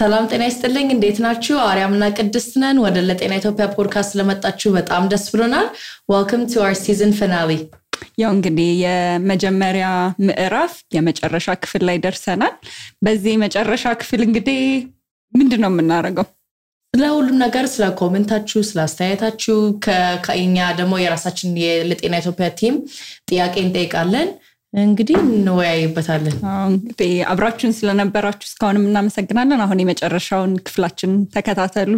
ሰላም ጤና ይስጥልኝ እንዴት ናችሁ አርያምና ቅድስት ነን ወደ ለጤና ኢትዮጵያ ፖድካስት ለመጣችሁ በጣም ደስ ብሎናል welcome to our season finale ያው እንግዲህ የመጀመሪያ ምዕራፍ የመጨረሻ ክፍል ላይ ደርሰናል በዚህ መጨረሻ ክፍል እንግዲህ ምንድነው የምናደርገው ለሁሉም ነገር ስለ ኮሜንታችሁ ስለ አስተያየታችሁ ከኛ ደግሞ የራሳችን የለጤና ኢትዮጵያ ቲም ጥያቄ እንጠይቃለን እንግዲህ እንወያይበታለን እንግዲህ አብራችሁን ስለነበራችሁ እስካሁንም እናመሰግናለን አሁን የመጨረሻውን ክፍላችን ተከታተሉ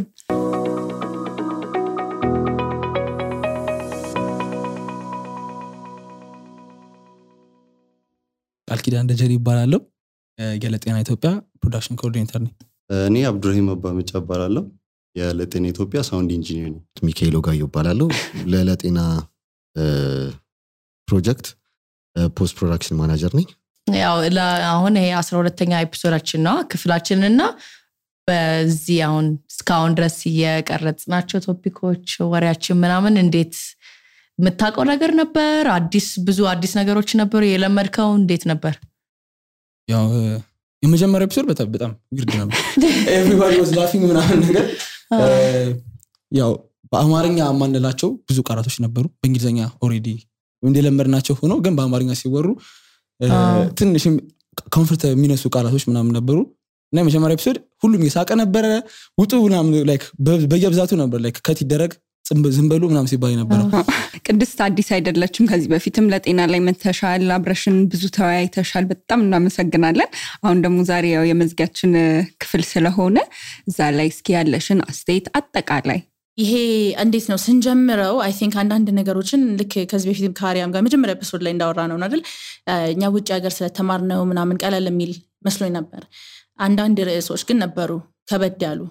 አልኪዳን ደጀሪ ይባላል የለጤና ኢትዮጵያ ፕሮዳክሽን ኮኦርዲኔተር ነኝ እኔ አብዱራሂም አባመጫ ይባላል የለጤና ኢትዮጵያ ሳውንድ ኢንጂነር ነኝ ሚካኤል ጋር ይባላል ለለጤና ፕሮጀክት ፖስት ፕሮዳክሽን ማናጀር ነኝ ያው አሁን ይሄ 12ኛ ኤፒሶዳችን ነው ክፍላችንና በዚህ አሁን እስካሁን ድረስ የቀረጽናቸው ቶፒኮች ወሬያችን ምናምን እንዴት መታቀው ነገር ነበር ብዙ አዲስ ነገሮች ነበሩ የለመድከው እንዴት ነበር ያው የመጀመሪያው ኤፒሶድ በጣም ዊርድ ነበር everybody was laughing ምናምን ነገር ያው በአማርኛ ማንላቸው ብዙ ቃላቶች ነበሩ በእንግሊዘኛ ኦሬዲ እንደለመድናቸው ሆኖ ግን በአማርኛ ሲወሩ ትንሽም ኮምፎርት የሚነሱ ቃላቶች ምናምን ነበሩ እና የመጀመሪያው ኤፒሶድ ሁሉም የሳቀ ነበር ውጡ ምናምን ላይክ በየብዛቱ ነበር ላይክ ከት ይደረግ ዝምበሉ ምናምን ሲባል ነበር ቅድስት አዲስ አይደለችም ከዚህ በፊትም ለጤና ላይ መተሻል አብረሽን ብዙ ተወያይተሻል በጣም እናመሰግናለን አሁን ደግሞ ዛሬ ያው የመዝጊያችን ክፍል ስለሆነ እዛ ላይ እስኪ ያለሽን አስተያየት አጠቃላይ ይሄ እንዴት ነው ስንጀምረው አይ ቲንክ አንዳንድ ነገሮችን ልክ ከዚህ በፊትም ካሪያም ጋር መጀመሪያ ኤፒሶድ ላይ እንዳወራነው አይደል እኛ ውጭ ሀገር ስለተማርነው ምናምን ቀለል የሚል መስሎኝ ነበር አንዳንድ ርዕሶች ግን ነበሩ ከበድ ያሉ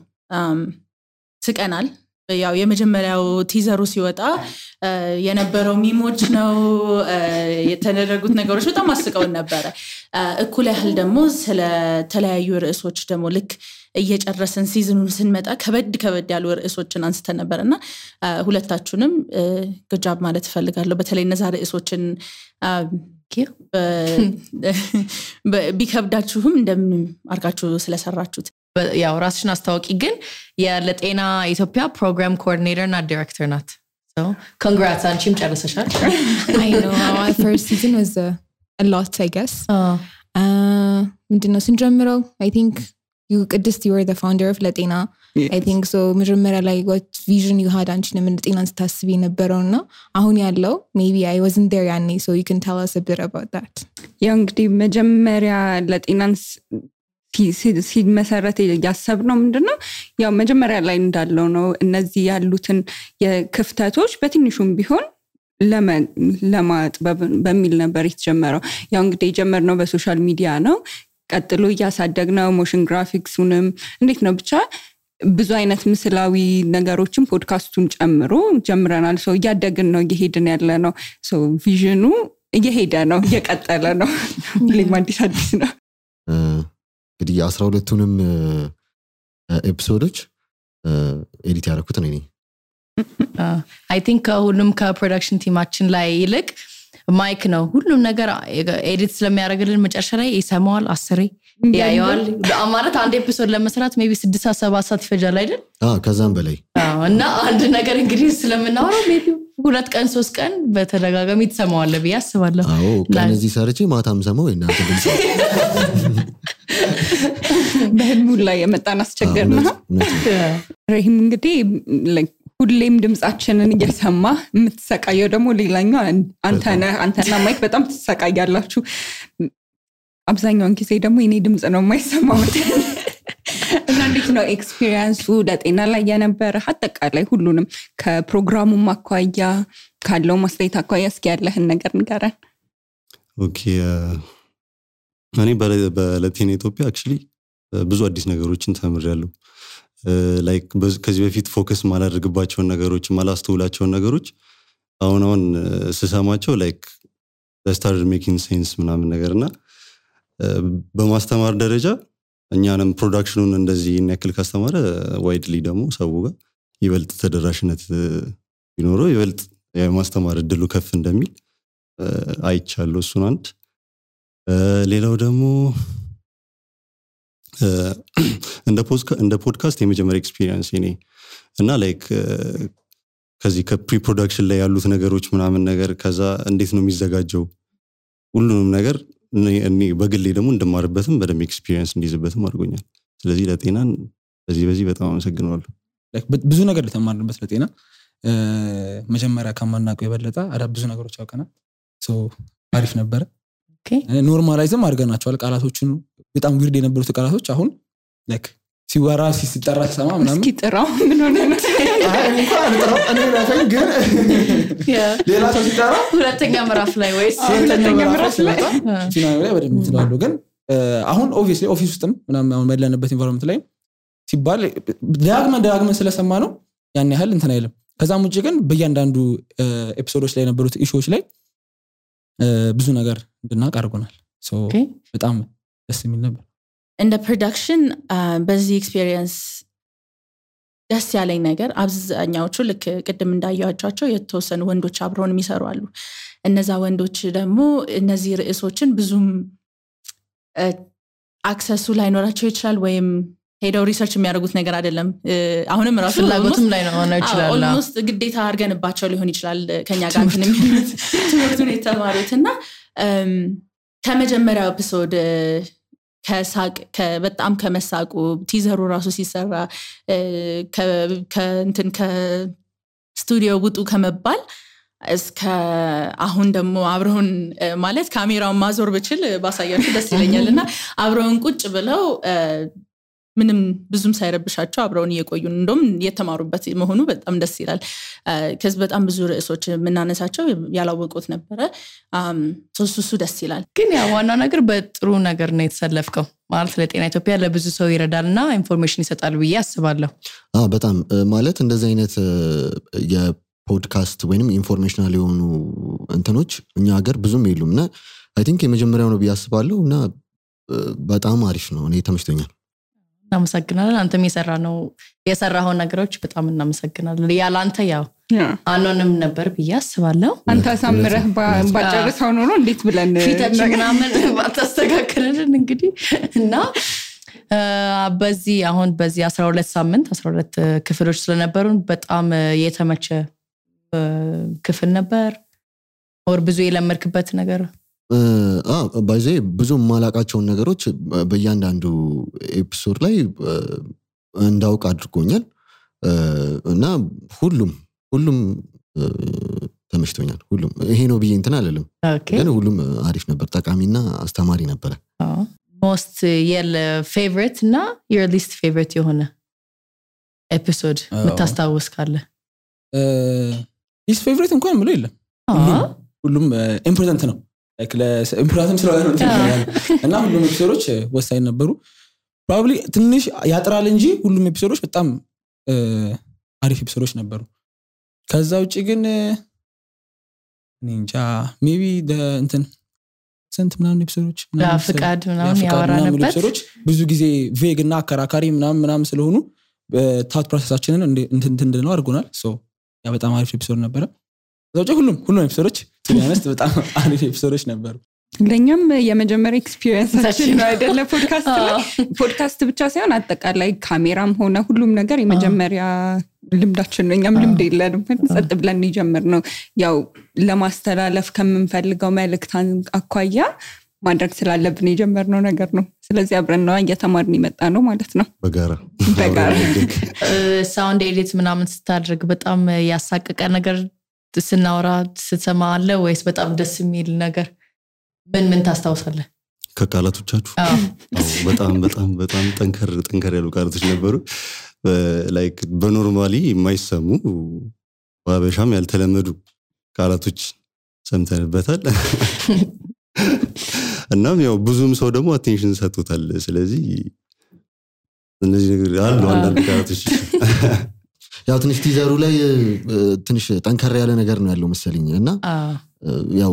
ስቀናል ያው የመጀመሪያው ቲዘሩ ሲወጣ የነበረው ሚሞች ነው የተደረጉት ነገሮች በጣም አስቀውን ነበር እኩል ያህል ደግሞ ስለ ተለያዩ ርዕሶች ደግሞ ልክ እየጨረሰን ሲዝኑን ስንመጣ ከበድ ያሉ ርዕሶችን አንስተን ነበርና ሁለታችሁንም ግጃብ ማለት ፈልጋለሁ በተለይ እነዛ ርዕሶችን ቢከብዳችሁም እንደምን አርጋችሁ ስለሰራችሁት ያው ራስሽን አስተዋውቂ ግን የለጤና ኢትዮጵያ ፕሮግራም ኮኦርዲኔተር እና ዳይሬክተር ናት so congrats አንቺም ጨርሰሻል I know our first season was a lot I guess ምንድነው ስንጀምረው I think you were the founder of ለጤና yes. I think so መጀመሪያ ላይ what vision you had አንቺ ምን ለጤናን ስታስቢ ነበርውና አሁን ያለው maybe I wasn't there ያኔ so you can tell us a bit about that ያው እንግዲህ መጀመሪያ ለጤናን ሲመሰረት ያሰብነው ምንድነው ያው መጀመሪያ ላይ እንዳለው ነው እነዚህ ያሉትን የክፍተቶች በትንሹም ቢሆን ለማጥበብ በሚል ነበር የተጀመረው ያው እንግዲህ የጀመርነው በሶሻል ሚዲያ ነው ቀጥሎ ያሳደግነው ሞሽን ግራፊክሱንም እንዴት ነው ብቻ ብዙ አይነት ምስላዊ ነገሮችን ፖድካስቱን ጨምሮ ጀምረናል ሶ ያደግን ነው እየሄድን ያለ ነው ሶ ቪዥኑ እየሄደ ነው እየቀጠለ ነው ለማዲስ አዲስ ነው እንግዲህ 12ቱንም ኤፒሶዶች ኤዲት ያደረኩት ነኝ I think ሁሉም ከፕሮዳክሽን ቲማችን ላይ ይልቅ ማይክ ነው ሁሉም ነገር ኤዲት ስለሚያደርግልን መጨረሻ ላይ ይሰማዋል 10 ያያዋል ማለት አንድ ኤፒሶድ ለመስራት maybe 6-7 ሰዓት ይፈጃል አይደል ከዛም በላይ እና አንድ ነገር እንግዲህ ስለምናወራው maybe 2 ቀን 3 ቀን በተደጋጋሚ ተሰማዋል ብዬ አስባለሁ ከነዚህ ሰርቼ ማታም ሰማው እናንተ ድምጽ በህልሙ ላይ የመጣን አስቸገርና ረሂም እንግዲህ ሁሌም ድምጻችንን እየሰማ የምትሰቃየው ደግሞ ሌላኛው አንተና ማይክ በጣም ትሰቃያላችሁ አብዛኛውን ጊዜ ደግሞ የኔ ድምጽ ነው የማይሰማው እና እንዴት ነው ኤክስፒሪየንሱ ለጤና ላይ የነበረ አጠቃላይ ሁሉንም ከፕሮግራሙ ማኳያ ካለው ማስተያየት አኳያ እስኪ ያለህን ነገር ንገረን ኦኬ እኔ በለጤና ኢትዮጵያ actually ብዙ አዲስ ነገሮችን ተምሬያለሁ ላይክ ከዚህ በፊት ፎከስ ማላደርግባቸው ነገሮች ማላስተውላቸው ነገሮች አሁን ስሰማቸው ላይክ started making sense ምናምን ነገርና በማስተማር ደረጃ እኛንም ፕሮዳክሽኑን እንደዚህ እንክል ካስተማረ ዋይድሊ ደግሞ ሰው ጋር ይበልጥ ተደራሽነት ቢኖረው ይበልጥ የማስተማር እድሉ ከፍ እንደሚል አይቻለሁ እሱን አንድ ሌላው ደግሞ እንደ ፖድካስት የመጀመሪያ ኤክስፒሪየንስ እኔ እና ላይክ ከዚህ ከፕሪ ፕሮዳክሽን ላይ ያሉት ነገሮች ምናምን ነገር ከዛ እንዴት ነው የሚዘጋጀው ሁሉንም ነገር እኔ በግሌ ደግሞ እንደማርበትም በደም ኤክስፒሪየንስ እንዲዝበትም አድርጎኛል ስለዚህ ለጤናን በዚህ በጣም አመሰግናለሁ ላይክ ብዙ ነገር ተማርንበት ለጤና መጀመሪያ ከማናውቀው የበለጠ ብዙ ነገሮች አውቀናል ሶ አሪፍ ነበር ኦኬ ኖርማላይዝም አድርገናቸዋል ቃላቶቹን በጣም ዊርድ የነበሩት ቃላቶች አሁን ላይክ ሲወራ ሲጠራ ተሰማ ምናምን እስኪ ጥራው ምን ሆነ ነው እኔ ራሴን ግን ሌላ ሰው ሲጠራ ሁለተኛ ምዕራፍ ላይ ወይስ ሁለተኛ ምዕራፍ ላይ ፊናል ላይ በደንብ ትላለሁ ግን አሁን ኦብቪየስሊ ኦፊስ ውስጥም ምናምን አሁን ባለንበት ኢንቫይሮንመንት ላይ ሲባል ዳግመን ስለሰማ ነው ያን ያህል እንትን አይልም ከዛም ውጪ ግን በእያንዳንዱ ኤፒሶዶች ላይ የነበሩት ኢሹዎች ላይ ብዙ ነገር እንድናውቅ አድርጎናል ሶ በጣም ደስ የሚል ነበር እንደ ፕሮዳክሽን በዚህ ኤክስፒሪየንስ ደስ ያለኝ ነገር አብዛኛዎቹ ልክ ቅድም እንዳያያቸው የተወሰኑ ወንዶች አብረውን የሚሰሩ አሉ እነዛ ወንዶች ደግሞ እነዚህ ርዕሶችን ብዙም አክሰሱ ላይኖራቸው ይችላል ወይም ሄደው ሪሰርች የሚያደርጉት ነገር አይደለም አሁንም ራሱ ፍላጎትም ላይ ነው ይችላል ኦልሞስት ግዴታ አድርገንባቸው ሊሆን ይችላል ከኛ ጋር እንትን የሚሉት ትምህርቱን የተማሩትና ከመጀመሪያው ኤፒሶድ ከሳቅ በጣም ከመሳቁ ቲዘሩ ራሱ ሲሰራ ከእንትን ከስቱዲዮ ውጡ ከመባል እስከ አሁን ደግሞ አብረውን ማለት ካሜራውን ማዞር ብችል ባሳያችሁ ደስ ይለኛልና አብረውን ቁጭ ብለው ምንም ብዙም ሳይረብሻቸው አብረውን እየቆዩ እንደም የተማሩበት መሆኑ በጣም ደስ ይላል ከዚህ በጣም ብዙ ርዕሶች ምናነሳቸው ያላወቁት ነበር ሶስቱ ደስ ይላል ግን ያ ዋናው ነገር በጥሩ ነገር ነው የተሰለፍከው ማለት ለጤና ኢትዮጵያ ለብዙ ሰው ይረዳልና ኢንፎርሜሽን ይሰጣል ብዬ አስባለሁ በጣም ማለት እንደዚህ አይነት የፖድካስት ወይንም ኢንፎርሜሽናል የሆኑ እንትኖች እኛ ሀገር ብዙም የሉምና አይ ቲንክ የመጀመሪያው ነው ብዬ አስባለሁ እና በጣም አሪፍ ነው እኔ ተመችቶኛል እናመሰግናለን አንተም የሰራኸው ነገሮች በጣም እናመሰግናለን ያላንተ ያው አኖንም ነበር ብዬ አስባለሁ አንተ ሳምረህ ባጨርሰው ነው እንዴት ብለን ፊታችን ምናምን ባታስተካክልን እንግዲህ እና በዚህ 12 ሳምንት 12 ክፍሎች ስለነበሩን በጣም የተመቸ ክፍል ነበር ወር ብዙ የለመድክበት ነገር ባይዜ ብዙ ማላቃቸውን ነገሮች በእያንዳንዱ ኤፒሶድ ላይ እንዳውቅ አድርጎኛል እና ሁሉም ተመችቶኛል ሁሉም ይሄ ነው ብዬ እንትን አለለም ግን ሁሉም አሪፍ ነበር ጠቃሚና አስተማሪ ነበር most favorite እና your least favorite የሆነ ኤፒሶድ መታስታውስ ካለ least favorite እንኳን ምለው የለም ሁሉም ኢምፖርታንት ነው ኢምፖርታንት ስለሆነ ነው እና ሁሉም ኤፒሶዶች ወሳኝ ነበሩ probably ትንሽ ያጥራል እንጂ ሁሉም ኤፒሶዶች በጣም አሪፍ ኤፒሶዶች ነበሩ ከዛ ውጪ ግን እንጃ maybe እንትን ስንት ምናምን ኤፒሶዶች ፍቃድ ምናምን ያወራንበት ኤፒሶዶች ብዙ ጊዜ ቬግ እና አከራካሪ ምናምን ስለሆኑ ታውት ፕሮሰሳችንን እንትን ነው አድርጎናል ሶ ያ በጣም አሪፍ ኤፒሶድ ነበረ ከዛ ሁሉም ኤፒሶዶች ትንያነስት በጣም አሪፍ ኤፒሶዶች ነበሩ ለኛም የመጀመሪያ ኤክስፒሪየንሳችን ነው አይደለ ፖድካስት ብቻ ሳይሆን አጠቃላይ ካሜራም ሆነ ሁሉም ነገር የመጀመሪያ ልምዳችን ነው እኛም ልምድ የለንም ጸጥ ብለን ይጀምር ነው ያው ለማስተላለፍ ከምንፈልገው መልእክት አኳያ ማድረግ ስላለብን የጀመርነው ነገር ነው ስለዚህ አብረን ነው እየተማርን ይመጣ ነው ማለት ነው በጋራ ሳውንድ ኤዲት ምናምን ስታደርግ በጣም ያሳቀቀ ነገር ስናወራ ስትሰማ አለ ወይስ በጣም ደስ የሚል ነገር ምን ታስታውሳለህ ከቃላቶቻችሁ በጣም ጠንከር ያሉ ቃላቶች ነበሩ ላይክ በኖርማሊ የማይሰሙ ባበሻም ያልተለመዱ ቃላቶች ሰምተንበታል እናም ያው ብዙም ሰው ደግሞ አቴንሽን ሰጥቶታል ስለዚህ እነዚህ ነገር አሉ አንዳንድ ቃላቶች ያው ትንሽ ቲዘሩ ላይ ትንሽ ጠንከር ያለ ነገር ነው ያለው መሰለኝ እና ያው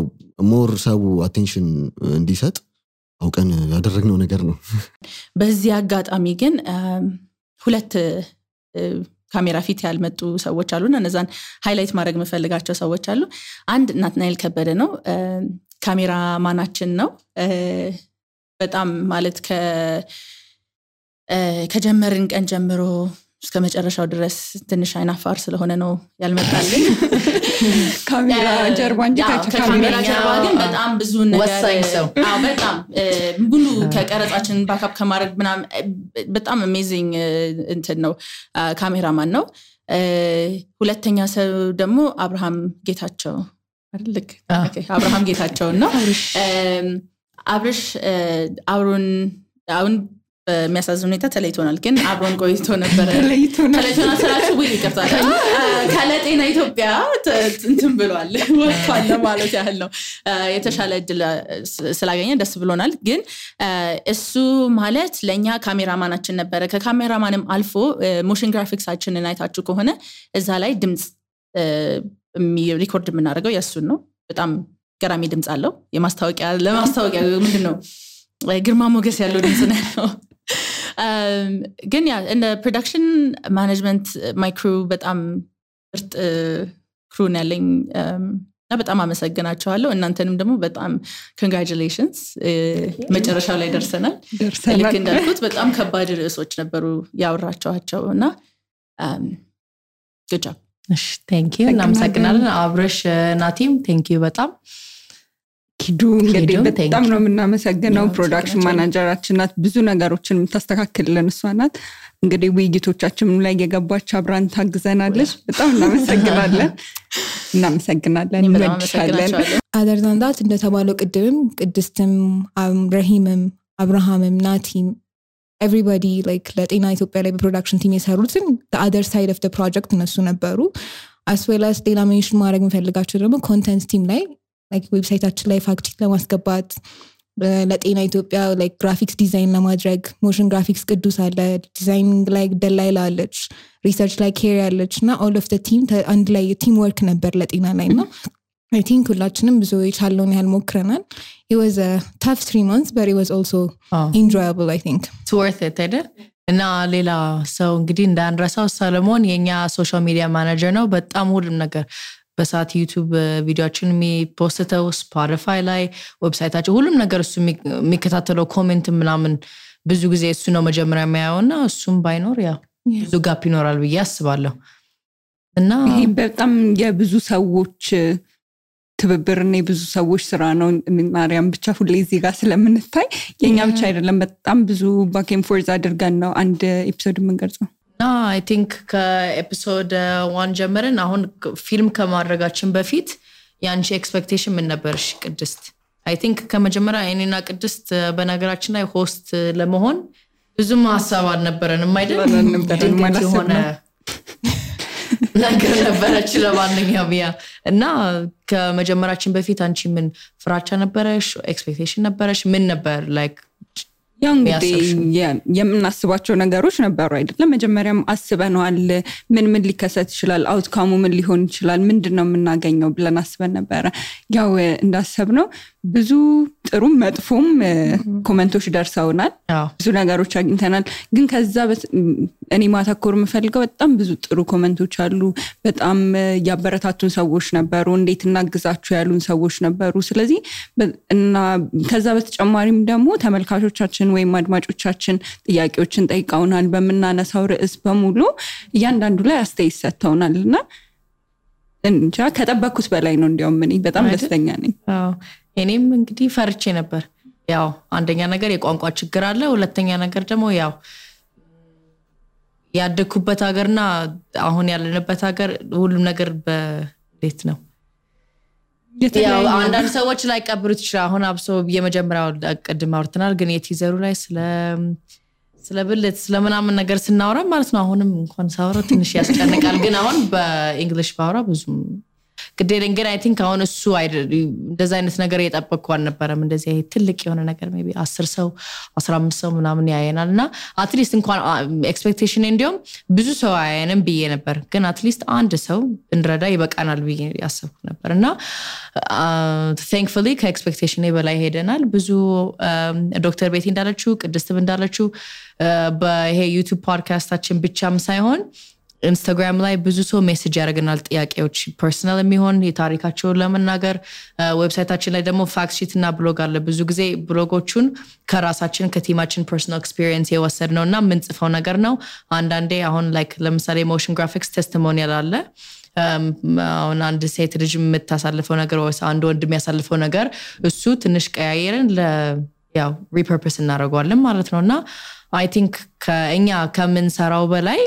ሞር ሰው አቴንሽን እንዲሰጥ አውቀን ያደረግነው ነገር ነው በዚህ አጋጣሚ ግን ሁለት ካሜራ ፊት ያልመጡ ሰዎች አሉና እነዛን ሃይላይት ማድረግ መፈልጋቸው ሰዎች አሉ አንድ ናትናኤል ከበደ ነው ካሜራ ማናችን ነው በጣም ማለት ከጀመርን ቀን ጀምሮ እስከ መጨረሻው ድረስ ትንሽ አይናፋር ስለሆነ ነው ያልመጣልኝ ካሜራ ጀርባ እንጂ ከካሜራ ጀርባ ግን በጣም ብዙ ነገር በጣም ሙሉ ከቀረጻችን ባካፕ ከማድረግ ምናምን በጣም አሜዚንግ እንትን ነው ካሜራማን ነው ሁለተኛ ሰው ደግሞ አብርሃም ጌታቸው አይደል አብርሃም ጌታቸው ነው አብርሽ አብሮን አሁን በሚያሳዝን ሁኔታ ተለይቶናል ግን አብሮን ቆይቶ ነበር ተለይቶናል ስላችሁ ወይ ይቀርታል ከለጤና ኢትዮጵያ እንትን ብሏል ወጥቷል ማለት ያህል ነው የተሻለ እድል ስላገኘ ደስ ብሎናል ግን እሱ ማለት ለኛ ካሜራማናችን ነበር ከካሜራማንም አልፎ ሞሽን ግራፊክሳችንን አይታችሁ ከሆነ እዛ ላይ ድምጽ ሪኮርድ የምናደርገው ያሱን ነው በጣም ገራሚ ድምጽ አለው ለማስታወቂያ ምንድነው ግርማ ሞገስ ያለው ድምጽ ነው ግን ያ እንደ ፕሮዳክሽን ማኔጅመንት ማይ ክሩ በጣም ምርጥ ክሩ ነው ያለኝ እና በጣም አመሰግናቸዋለሁ እናንተንም ደግሞ በጣም ኮንግራቹሌሽንስ መጨረሻው ላይ ደርሰናል ልክ እንዳልኩት በጣም ከባድ ርዕሶች ነበሩ ያወራቸዋቸው እና good job እሺ thank you እናመሰግናለን አብረሽ ናቲም thank you በጣም ኪዱ እንግዲህ በጣም ነው የምናመሰግነው ፕሮዳክሽን ማናጀራችን ናት ብዙ ነገሮችን የምታስተካክልልን እሷ ናት እንግዲህ ውይይቶቻችንም ላይ የገባች አብራን ታግዘናለች በጣም እናመሰግናለን እንወድሻለን other than that እንደተባለው ቅድምም ቅድስትም ረሂምም አብርሃምም ናቲም everybody like ለጤና ኢትዮጵያ ላይ በፕሮዳክሽን ቲም የሰሩትን the other side of the project እነሱ ነበሩ as well as ሌላ ሜንሽን ማድረግ የምፈልጋቸው ደግሞ ኮንተንት ቲም ላይ like ዌብሳይታችን ላይ ፋክት ቼክ ለማስገባት ለጤና ኢትዮጵያ like graphics design ለማድረግ motion graphics ቅዱስ አለ ዲዛይኒንግ ላይ ደላይላ አለች ሪሰርች ላይ ኬሪ አለች እና all of the team አንድ ላይ ቲም ወርክ ነበር ለጤና ላይ ነው I think ሁላችንም ብዙ የቻለውን ያህል ሞክረናል it was a tough 3 months but it was also enjoyable I think it's worth it አይደል እና ሌላ ሰው እንግዲህ እንዳንረሳው ሰለሞን የኛ ሶሻል ሚዲያ ማኔጀር ነው በጣም ሁሉም ነገር በሳት ዩቲዩብ ቪዲዮችን የሚፖስተው ስፖቲፋይ ላይ ዌብሳይታቸው ሁሉም ነገር እሱ የሚከታተለው ኮሜንት ምናምን ብዙ ጊዜ እሱ ነው መጀመሪያ የሚያየውና እሱም ባይኖር ያ ብዙ ጋፕ ይኖራል ብዬ አስባለሁ እና ይሄ በጣም የብዙ ሰዎች ትብብርና የብዙ ሰዎች ስራ ነው ማርያም ብቻ ሁሌ እዚህ ጋር ስለምንታይ የኛ ብቻ አይደለም በጣም ብዙ ባክ ኤንድ ፎርዝ አድርገን ነው አንድ ኤፒሶድ የምንቀርጸው I think ከኤፒሶድ 1 ጀምረን አሁን ፊልም ከማድረጋችን በፊት ያንቺ ኤክስፔክቴሽን ምን ነበርሽ ቅድስት I think ከመጀመሪያ እኔና ቅድስት በነገራችን ላይ ሆስት ለመሆን ብዙም ሐሳብ አልነበረንም አይደል ማለት ሆነ ነገር ነበረች ለማንኛውም ያ እና ከመጀመራችን በፊት አንቺ ምን ፍራቻ ነበረሽ ኤክስፔክቴሽን ነበረሽ ምን ነበር like ያው እንግዲህ የምናስባቸው ነገሮች ነበሩ አይደለም መጀመሪያም አስበናል ምን ሊከሰት ይችላል አውትካሙ ምን ሊሆን ይችላል ምንድነው የምናገኘው ብለን አስበን ነበር ያው እንዳሰብነው ብዙ ጥሩ መጥፎም ኮሜንቶች ደርሰውናል ብዙ ነገሮች አግኝተናል ግን ከዛ እኔ ማተኮር የምፈልገው በጣም ብዙ ጥሩ ኮሜንቶች አሉ በጣም ያበረታቱን ሰዎች ነበሩ እንዴት እናግዛችሁ ያሉን ሰዎች ነበሩ ስለዚህ እና ከዛ በተጨማሪም ደግሞ ተመልካቾቻችን ወይም አድማጮቻችን ጥያቄዎችን ጠይቀውናል በመናነሳው ርዕስ በሙሉ እያንዳንዱ ላይ አስተያየት ሰጥተውናልና እንጃ ከጠበቅኩት በላይ ነው እንዲያውም እኔ በጣም ደስተኛ ነኝ እኔም እንግዲህ ፈርቼ ነበር ያው አንደኛ ነገር የቋንቋ ችግር አለ ሁለተኛ ነገር ደግሞ ያው ያደኩበት ሀገርና አሁን ያለንበት ሀገር ሁሉም ነገር በቤት ነው ያው አንዳንድ ሰዎች ላይ ቀብሩት ይችላል አሁን አብሶ የመጀመሪያው ቀድም አውርተናል ግን የቲዘሩ ላይ ስለብልት ስለምናምን ነገር ስናወራ ማለት ነው አሁንም እንኳን ሳወራ ትንሽ ያስጨንቃል ግን አሁን በእንግሊሽ ባወራ ብዙ ግዴለኝ ግን I think አሁን እሱ እንደዛ አይነት ነገር የጠበቅኩ አልነበረም እንደዚህ ይሄ ትልቅ የሆነ ነገር maybe 10 ሰው 15 ሰው ምናምን ያየናልና at least እንኳን ኤክስፔክቴሽን እንዲያውም ብዙ ሰው ያየንም ብዬ ነበር ግን at least አንድ ሰው እንረዳ ይበቃናል ብዬ ያሰብኩ ነበርና thankfully ከኤክስፔክቴሽን በላይ ሄደናል ብዙ ዶክተር ቤቲ እንዳለችው ቅድስትም እንዳለችው በይሄ ዩቲዩብ ፖድካስታችን ብቻም ሳይሆን ኢንስታግራም ላይ ብዙ ሰው ሜሴጅ ያደርገናል ጥያቄዎች ፐርሰናል የሚሆን የታሪካቸውን ለመናገር ዌብሳይታችን ላይ ደግሞ ፋክት ሺት እና ብሎግ አለ ብዙ ጊዜ ብሎጎቹን ከራሳችን ከቲማችን ፐርሰናል ኤክስፒሪየንስ የወሰድነውና ምንጽፈው ነገር ነው አንዳንዴ አሁን ላይክ ለምሳሌ ሞሽን ግራፊክስ ቴስቲሞኒያል አለ አሁን አንድ ሴት ልጅ የምታሳልፈው ነገር ወይ አንድ ወንድ የሚያሳልፈው ነገር እሱ ትንሽ ቀያየርን ያው ሪፐርፐስ እናደርገዋለን ማለት ነውና አይ ቲንክ ከኛ ከምንሰራው በላይ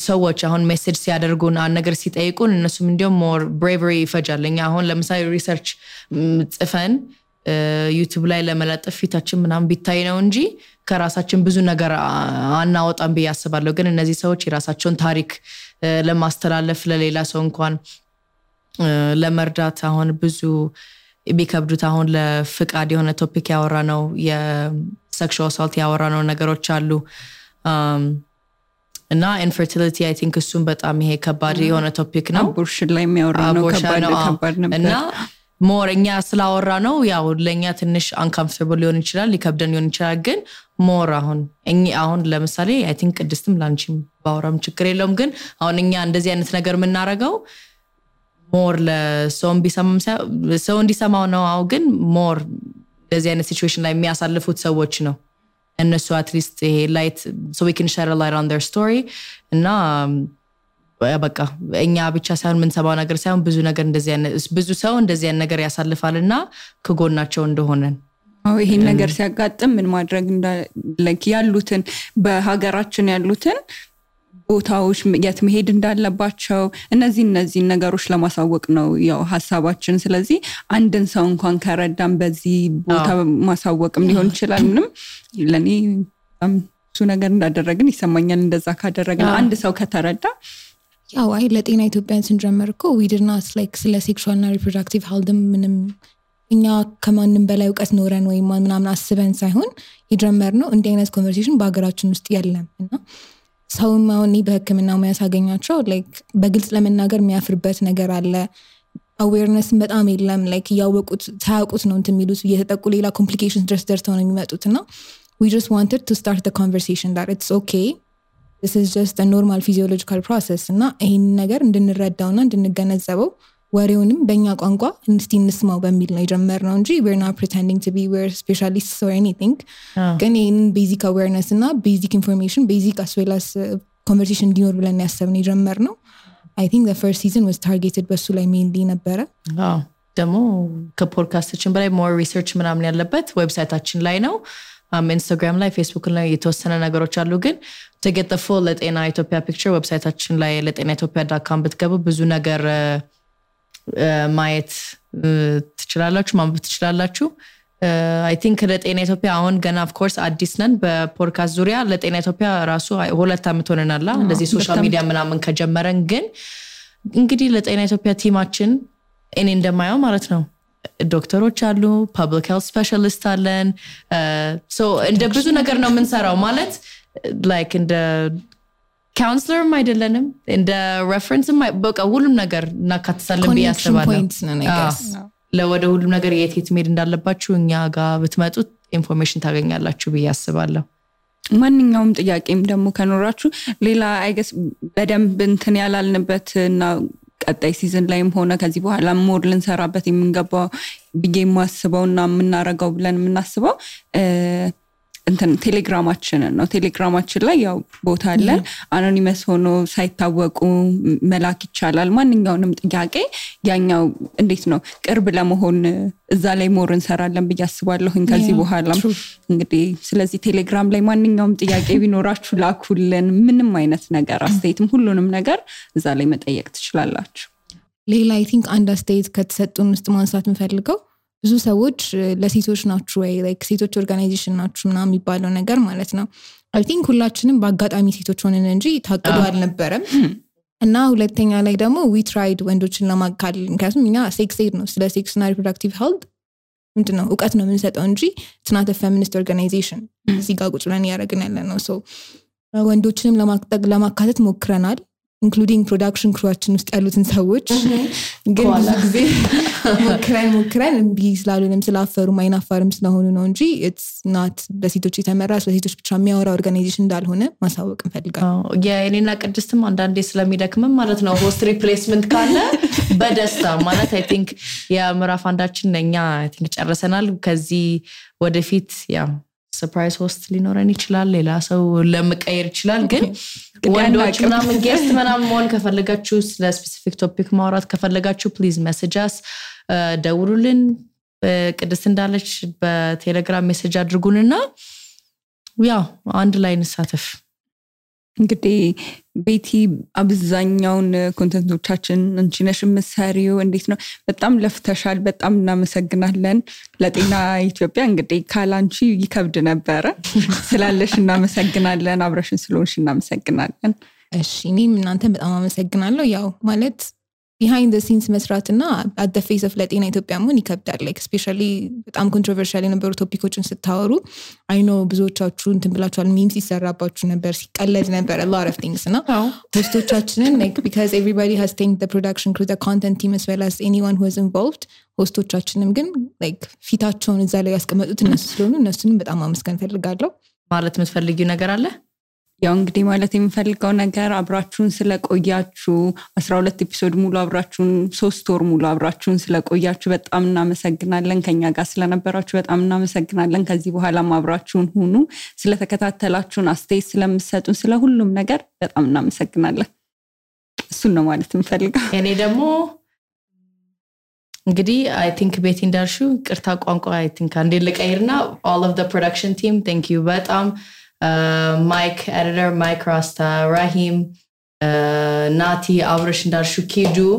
ሰዎች አሁን ሜሴጅ ሲያደርጉን አንድ ነገር ሲጠይቁን እነሱም እንዲያው ሞር ብሬቨሪ ይፈጃለኛ አሁን ለምሳሌ ሪሰርች ጽፈን ዩቲዩብ ላይ ለመለጠፍ ፊታችን ምናምን ቢታይ ነው እንጂ ከራሳችን ብዙ ነገር አናወጣም በያስባለሁ ግን እነዚህ ሰዎች የራሳቸውን ታሪክ ለማስተላለፍ ለሌላ ሰው እንኳን ለመርዳት አሁን ብዙ ቢከብዱት አሁን ለፍቃድ የሆነ ቶፒክ ያወራ ነው የሴክሹዋል አሳልት ያወራ ነው ነገሮች አሉ እና ኢንፈርቲሊቲ አይ ቲንክ እሱም በጣም ይሄ ከባድ የሆነ ቶፒክ ነው አቦርሽን ላይ የሚያወራ ነው ከባድ ነበር እና ሞርኛ ስላወራ ነው ያው ለኛ ትንሽ አንኮምፎርታብል ሊሆን ይችላል ሊከብደን ሊሆን ይችላል ግን ሞር አሁን ለምሳሌ አይ ቲንክ ቅድስትም ላንቺም ባወራም ችግር የለውም ግን አሁን እኛ እንደዚህ አይነት ነገር የምናረጋው ሞር ለሰው ሰው እንዲሰማው ነው አው ግን ሞር እንደዚህ አይነት ሲቹዌሽን ላይ የሚያሳልፉት ሰዎች ነው እነሱ አትሊስት ይሄ ላይት so we can shed a light on their story እና በቃ እኛ ብቻ ሳይሆን ምን ሰባው ነገር ሳይሆን ብዙ ነገር እንደዚህ አይነት ብዙ ሰው እንደዚህ አይነት ነገር ያሳልፋልና ከጎናቸው እንደሆነን ይሄን ነገር ሲያጋጥም ምን ማድረግ ላይክ ያሉትን በሀገራችን ያሉትን ቦታዎች የት መሄድ እንዳለባቸው እነዚህ ነገሮች ለማሳወቅ ነው ያው ሐሳባችን ስለዚህ አንድን ሰው እንኳን ከረዳም በዚህ ቦታ ማሳወቅም ሊሆን ይችላል ምንም ለኔ እሱ ነገር እንዳደረግን ይሰማኛል እንደዛ ካደረግን አንድ ሰው ከተረዳ ያው አይ ለጤና ኢትዮጵያን ስንጀምርኮ we did not like ስለ sexual and reproductive health ምንም እኛ ከማንም በላይ ዕውቀት ኖረን ወይ ምናምን አስበን ሳይሆን የጀመርነው እንደ አይነት ኮንቨርሴሽን በአገራችን ውስጥ የለም እና ሰው ማውኒ በህክምናው የሚያሳገኛቸው ላይክ በግልጽ ለመናገር የሚያፍርበት ነገር አለ አዌርነስ በጣም የለም ላይክ ያወቁት ታውቁት ነው እንትሚሉት እየተጠቁ ሌላ ኮምፕሊኬሽንስ ድረስ ደርሰው ነው የሚመጡትና we just wanted to start the conversation that it's okay this is just a normal physiological process እና ይሄን ነገር እንድንረዳውና እንድንገነዘበው ወሬውንም በእኛ ቋንቋ እንስቲ እንስማው በሚል ነው የጀመርነው እንጂ we're not pretending to be we're specialists or anything ግን ይሄን basic awareness እና basic information basic as well as conversation እንዲኖር ብለን ያሰብን የጀመርነው I think the first season was targeted በሱ ላይ mainly ነበረ ደግሞ ከፖድካስታችን በላይ more research ምናምን ያለበት ዌብሳይታችን ላይ ነው ኢንስታግራም ላይ ፌስቡክ ላይ የተወሰነ ነገሮች አሉ ግን to get the full ለጤና ኢትዮጵያ picture ዌብሳይታችን ላይ letenaethiopia.com ብትገቡ ብዙ ነገር ማየት ትችላላችሁ ማንበብ ትችላላችሁ I think ለጤና ኢትዮጵያ አሁን ገና of course አዲስ ነን በፖድካስት ዙሪያ ለጤና ኢትዮጵያ ራሱ 2 አመት ሆነናል እንደዚህ ሶሻል ሚዲያ ምናምን ከጀመረን ግን እንግዲህ ለጤና ኢትዮጵያ ቲማችን እኔ እንደማየው ማለት ነው ዶክተሮች አሉ ፐብሊክ ሄልት ስፔሻሊስት አለን so እንደ ብዙ ነገር ነው የምንሰራው ማለት like እንደ counselor አይደለንም እንደ reference በቃ ሁሉም ነገር እናካትታለን በያስባለሁ ለወደ ሁሉም ነገር የት መሄድ እንዳለባችሁ እኛ ጋር ብትመጡት ኢንፎርሜሽን ታገኛላችሁ በያስባለሁ ማንኛውም ጥያቄም ደግሞ ከኖራችሁ ሌላ I guess በደንብ እንትን ያላልንበትና ቀጣይ ሲዝን ላይም ሆነ ከዚህ በኋላ ሞር ልንሰራበት የምንገባው ቢጌ ማስበውና ምናረጋው ብለን ምናስበው እንትን ቴሌግራማችን ነው ቴሌግራማችን ላይ ያው ቦታ አለን አኖኒመስ ሆኖ ሳይታወቁ መላክ ይቻላል ማንኛውንም ጥያቄ ያኛው እንዴት ነው ቅርብ ለመሆን እዛ ላይ ሞር እንሰራለን በያስባለሁ ከዚህ በኋላ እንግዲህ ስለዚህ ቴሌግራም ላይ ማንኛውም ጥያቄ ቢኖራችሁ ላኩልን ምንም አይነት ነገር አስተያየትም ሁሉንም ነገር እዛ ላይ መጠየቅ ትችላላችሁ ሌላ I think አንድ አስተያየት ከተሰጡን ውስጥ ማንሳት እንፈልገው ብዙ ሰዎች ለሴቶች ናችሁ ወይ like ሴቶች ኦርጋናይዜሽን ናችሁ ምናምን የሚባለው ነገር ማለት ነው I think ሁላችንም በአጋጣሚ ሴቶች ሆነን እንጂ ታቅዶ አልነበረም እና ሁለተኛ ላይ ደግሞ we tried ወንዶችን ለማካለል ምክንያቱም እኛ ሴክስ ኤድ ነው ስለ ሴክስ እና ሪፕሮዳክቲቭ ሄልት ምንድነው ዕውቀት ነው የምንሰጠው እንጂ it's not a feminist organization እዚህ ጋር ቁጭ ብለን ያደረግን ያለ ነው so ወንዶችንም ለማካተት ሞክረናል including production crew-አችን ውስጥ ያሉትን ሰዎች ግን ብዙ ጊዜ ሞክረን እምቢ ስላሉንም ስላፈሩ ማይናፋርም ስለሆኑ ነው እንጂ it's not በሴቶች የተመራ ስለሴቶች ብቻ የሚያወራ ኦርጋናይዜሽን እንዳልሆነ ማሳወቅ እንፈልጋለን። የኔና ቅድስትም አንዳንዴ ስለሚደክምም ማለት ነው ሆስት ሪፕሌስመንት ካለ በደስታ ማለት I think የምዕራፍ አንዳችን ለኛ I think ጨርሰናል ከዚህ ወደፊት ያው ሰርፕራይዝ ሆስት ሊኖረን ይችላል ሌላ ሰው ለመቀየር ይችላል ግን ወንዶች ምናምን ጌስት ምናምን መሆን ከፈለጋችሁ ስለ ስፔሲፊክ ቶፒክ ማውራት ከፈለጋችሁ ፕሊዝ ሜሴጅ አስ ደውሉልን ቅድስት እንዳለች በቴሌግራም ሜሴጅ አድርጉንና ያው አንድ ላይ እንሳተፍ እንግዲህ ቤቲ አብዛኛውን ኮንተንቶቻችን አንቺ ነሽ የምትሰሪው እንዴት ነው በጣም ለፍተሻል በጣም እናመሰግናለን ለጤና ኢትዮጵያ እንግዲህ ካላንቺ ይከብድ ነበር ስላለሽ እናመሰግናለን አብረሽን ስለሆንሽ እናመሰግናለን እሺ እኔም እናንተን በጣም አመሰግናለሁ ያው ማለት behind the scenes መስራትና at the face of ለጤና ኢትዮጵያ መሆን ይከብዳል like especially በጣም controversial የነበሩ ቶፒኮችን ስታወሩ I know ብዙዎቻችሁ እንትን ብላችኋል memes ሲሰራባችሁ ነበር ሲቀለድ ነበር a lot of things እና ሆስቶቻችንን like because everybody has thanked the production crew the content team as well as anyone who was involved ሆስቶቻችንም ግን like ፊታቸውን እዛ ላይ ያስቀመጡት እነሱ ስለሆኑ እነሱንም በጣም አመስገን ፈልጋለሁ ማለት የምትፈልጊው ነገር አለ ያው እንግዲህ ማለት የምፈልገው ነገር አብራችሁን ስለቆያችሁ 12 ኤፒሶድ ሙሉ አብራችሁን 3 ወር ሙሉ አብራችሁን ስለቆያችሁ በጣም እናመሰግናለን ከኛ ጋር ስለነበራችሁ በጣም እናመሰግናለን ከዚህ በኋላ አብራችሁን ሁኑ ስለተከታተላችሁን አስተያየት ስለምትሰጡን ስለሁሉም ነገር በጣም እናመሰግናለን እሱን ነው ማለት የምፈልገው እኔ ደግሞ እንግዲህ I think ቤቲ እንዳልሹ ቅርታ ቋንቋ I think አንዴ ልቀይርና all of the production team thank you በጣም Mike editor Mike Rasta Rahim Nati Avrish Ndarshu Kidu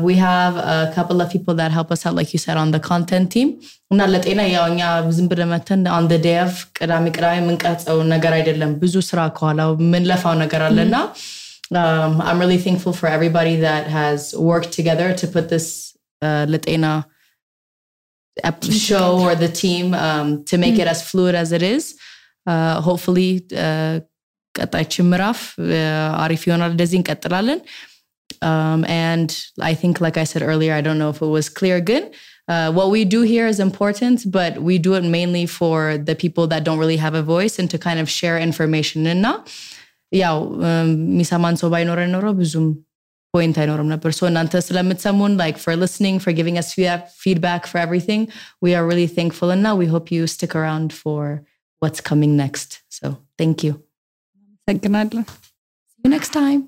we have a couple of people that help us out like you said on the content team እና ለጤና ያውኛ ዝም ብለን መተን on the day of ቅዳሜ ምንቀርጸው ነገር አይደለም ብዙ ስራ ከኋላው ምን ለፋው ነገር አለና I'm really thankful for everybody that has worked together to put this ለጤና show or the team to make it as fluid as it is hopefully ቀጣይችን ምዕራፍ አሪፍ ይሆናል እንደዚህ እንቀጥላለን and I think like I said earlier I don't know if it was clear good what we do here is important but we do it mainly for the people that don't really have a voice and to kind of share information እና ያው ሚሰማን ሰው ባይኖረን ኖሮ ብዙም point አይኖርም ነበር so እናንተ ስለምትሰሙን like for listening for giving us feedback for everything we are really thankful and now we hope you stick around for what's coming next so thank you thank you see you next time